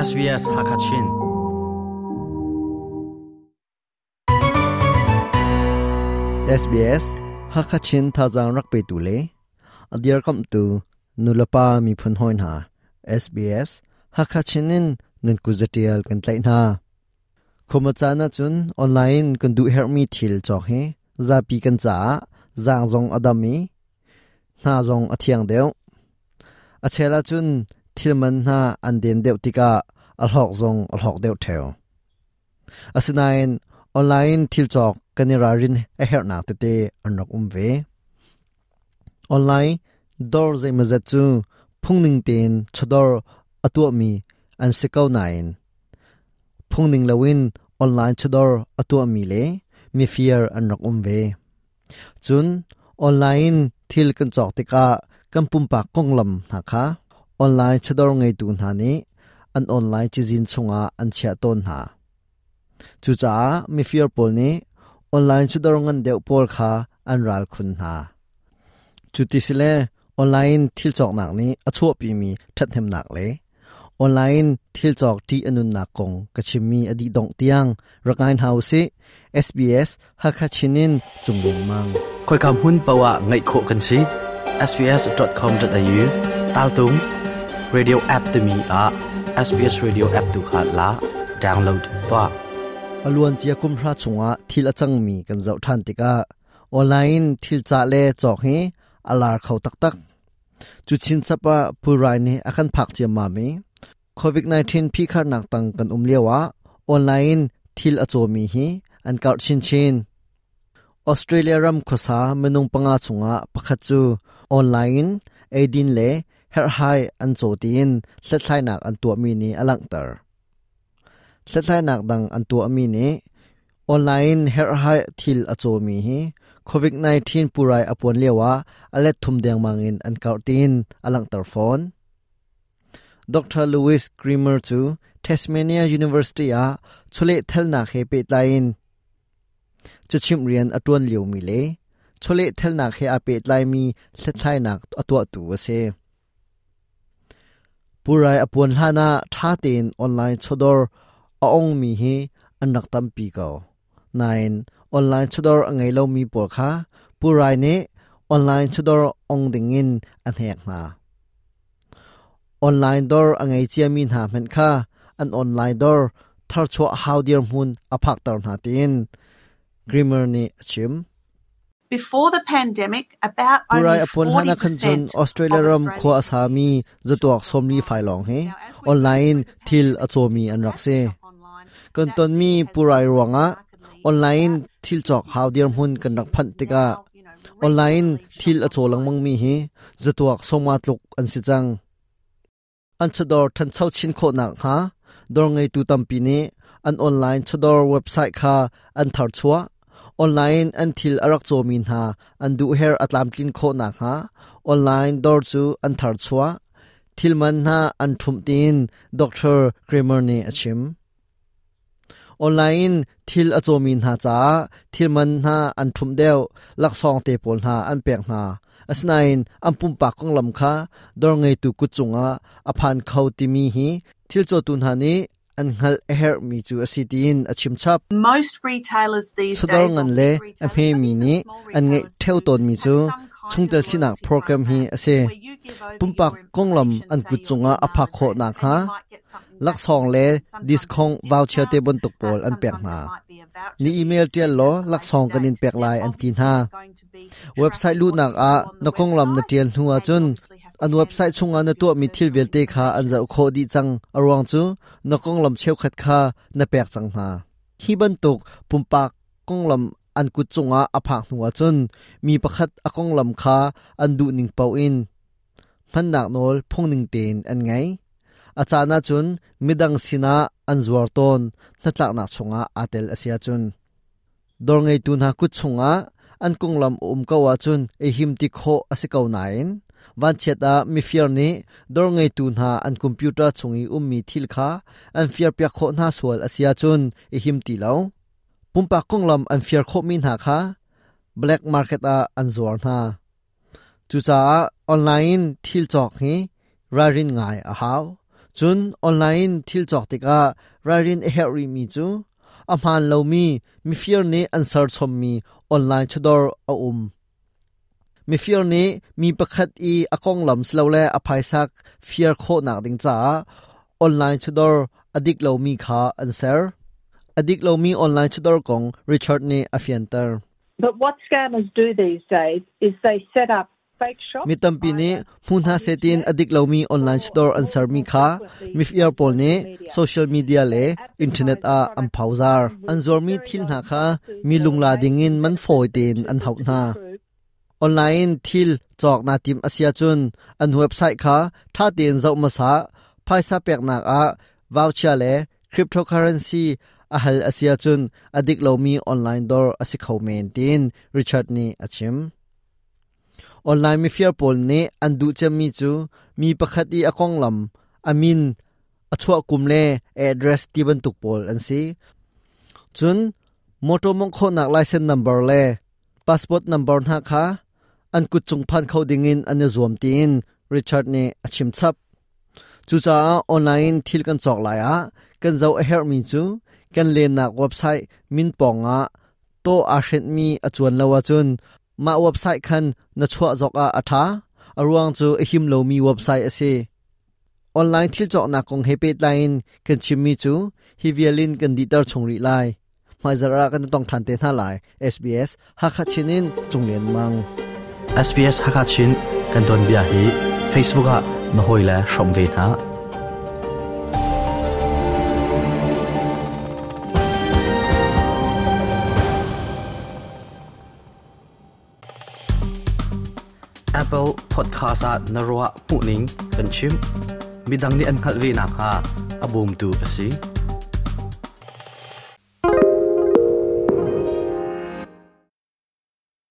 SBS Hakachin. SBS Hakachin thazang rak pe tu le adir kam tu nulapa mi phun hoi hna SBS Hakachin in nun kuzatial kan tlai hna khoma chana chun online kan du hermi thil chok hi zapi kan cha zang zong adami hna zong a thiang deuh. A chel ahcun thil man hna an den deuh tikah a hlawk zong a hlawk deuh ṭheo. Asinain online thil cawk kan i ralrin a herhnak tete an rak um ve. Online dawr zeimawzat cu phungning tein chawdawr a tuahmi an si ko nain phungning loin online chawdawr a tuahmi le mifir an rak um ve. Cun online in thil kan cawk tikah kan pumpak konglam hna kha online chawdawr ngeitu hna nih an online cazin chungah an chiah tawn hna. Cucaah mifir pawl nih online chawdawr ngan deuh pawl kha an ral khun hna. Cuti sile online thil cawknak nih a chuahpimi ṭhathnemnak le Online thil cawk ṭih a nunnak kong ka chimmi a dih dongh tiang rak ngai hna usih. SBS Hakha Chin in Cung Lengmang. Khoika hmun paoh ah ngaih khawh kan si. sbs.com.au taltung radio app timi ah SBS Radio app tu kha la download tuah. A luancia kum hra chungah thil a cangmi kan zoh ṭhan tikah online thil cah le cawk hi a lar kho taktak. Cu chinchap ah pulrai nih a kan phak ciammam i COVID-19 phihkharnak tang kan um lioah online in thil a cawmi hi an karh chinchin. Australia ram khuasa minung panga chungah pakhat cu online in eidin le herhhai an caw tiin hlathlainak an tuahmi nih a langhter. Hlathlainak dang an tuahmi nih online herhhai thil a cawmi hi COVID-19 purai a puan lioah a let thum dengmang in an karh tiin a langhter fawn. Dr. Louis Grimmer cu Tasmania University ah chawleh thalnak he pehtlai in cachimh rian a ṭuan liomi le chawleh thalnak he aa pehtlaimi hlathlainak a tuahtu a si. Pulrai a puan hlan ah ṭha tein online chawdawr a ongmi hi an rak tampi ko. Nain online chawdawr a ngei lomi pawl kha pulrai nih online chawdawr ong dingin a hnek hna. Online dawr a ngei ciami hna hmanh kha an online dawr tharchuah hau dirhmun a phakter hna tiin Grimmer nih a chim. Before the pandemic, about Purai only a puan hlan ah khan cun 40% Australia of ram khua a Australian sami zatuak sawmli fai lawng hi online thil a cawmi an rak si. Kan tonmi purai ruangah online thil cawk hau dirhmun kan rak phanh tikah online thil a caw lengmangmi hi zatuak sawma tluk an si cang. An chawdawr ṭhancho chin khawh nakhnga dawr ngeitu tampi nih an online chawdawr website kha an tharchuah. Online an thil a rak cawmi hna an duhherh a tlamtlin khawh nakhnga online dawr cu an tharchuah. Thil man hna an ṭhumh tiin Dr. Kramer nih a chim. Online in thil a cawmi hna caah thil man hna an ṭhumh deuh, laksawng te pawl hna an pek hna. Asinain an pumpak konglam kha dawr ngeitu kut cungah a phan kho timi hi thil cawtu hna nih an hngalh a herhmi cu a si tiin a chim chap. Most retailers these Chawdawr days, ngan or le big a retailers, but hmemi even nih small an ngeih retailers ṭheo do, tawnmi have cu some kind chungtel of sinak loyalty program hi program a si. where you give over Pumpak your konglam information, an say kut your cungah a email phak khawh address, and nakhnga you might get something back in laksawng le return. Sometimes it's discount a voucher te discount, bantuk pawl an pek sometimes hna. it might be a voucher Ni that you email ṭial spend law at a later laksawng kan in date. pek Now, lai an ti obviously, hna. they're going to be Website tracking what luhnak you do ah on the na konglam na website, ṭial hnu and you ahcun obviously have to an hand website over chungah some na of your tuahmi thil personal vialte kha an information. zoh khawh dih cang. A ruang cu na konglam cheukhat kha na pek cang hna. Hi bantuk pumpak konglam an kut cungah a phak hnu ahcun mi pakhat a konglam kha an duhning paoh in hmannak nawl phungning tein an ngei. A caan ahcun midang sinah an zuar tawn hnatlaknak chungah aa tel a si ahcun. Dawr ngeitu hna kut chungah an konglam a um ko ahcun ei him ti khawh a si ko nain vanchiat ah mifir nih dawr ngeitu hna an computer chung i ummi thil kha an firpiak khawh hna sual a si ahcun i him ti lo. Pumpak konglam an fir khawhmi hna kha black market ah an zuar hna. Cucaah online in thil cawk hi ralrin ngai a hau. Cun online thil cawk tikah ralrin a herh rihmi cu a hmaan lomi mifir nih an serchommi online chawdawr a um. Mifir nih mi pakhat i a konglam silole a phaisa fir khawhnak ding caah online chawdawr a dik lomi kha an ser. A dik lomi online chawdawr kong Richard nih a fianter. But what scammers do these days is they set up Mi tampi nih hmu hna seh tiin a dik lomi online store an sermi kha mifir pawl nih social media le internet ah an phozaar. An zuarmi thil hna kha mi lungla dingin man fawi tein an hauh hna. Online in thil cawk naa tim a si ahcun an website kha ṭha tein zoh hmasa. Phaisa peknak ah voucher le cryptocurrency a hal a si ahcun a dik lomi online dawr a si kho men tiin Richard nih a chim. Online mifir pawl nih an duh cemmi cu mi pakhat i a konglam, a min, a chuah kum le address ti bantuk pawl an si. Cun motor mawngh khawhnak license number le passport number hna kha an kut cung phan kho dingin an i zuam tiin Richard nih a chim chap. Cucaah online in thil kan cawk lai ah kan zoh a herhmi cu kan lennak website min pawngah tawh aa hrenhmi a cuan lo ahcun mah website khan na chuah zok ah a ṭha. A ruang cu a him lomi website a si. Online thil cawknak kong he pehtlai in kan chimmi cu hi vial in kan dihter chung rih lai. Hmaizarh ah kan i tong ṭhan te hna lai. SBS Hakha Chin in Cung Lian Mang. SBS Hakha Chin kan tuanbia hi Facebook ah na hawile hrawm ve hna. Apple Podcast ah na ruah hmuhning kan chim. Midang nih an hngalh ve nakhnga a bawmtu a si.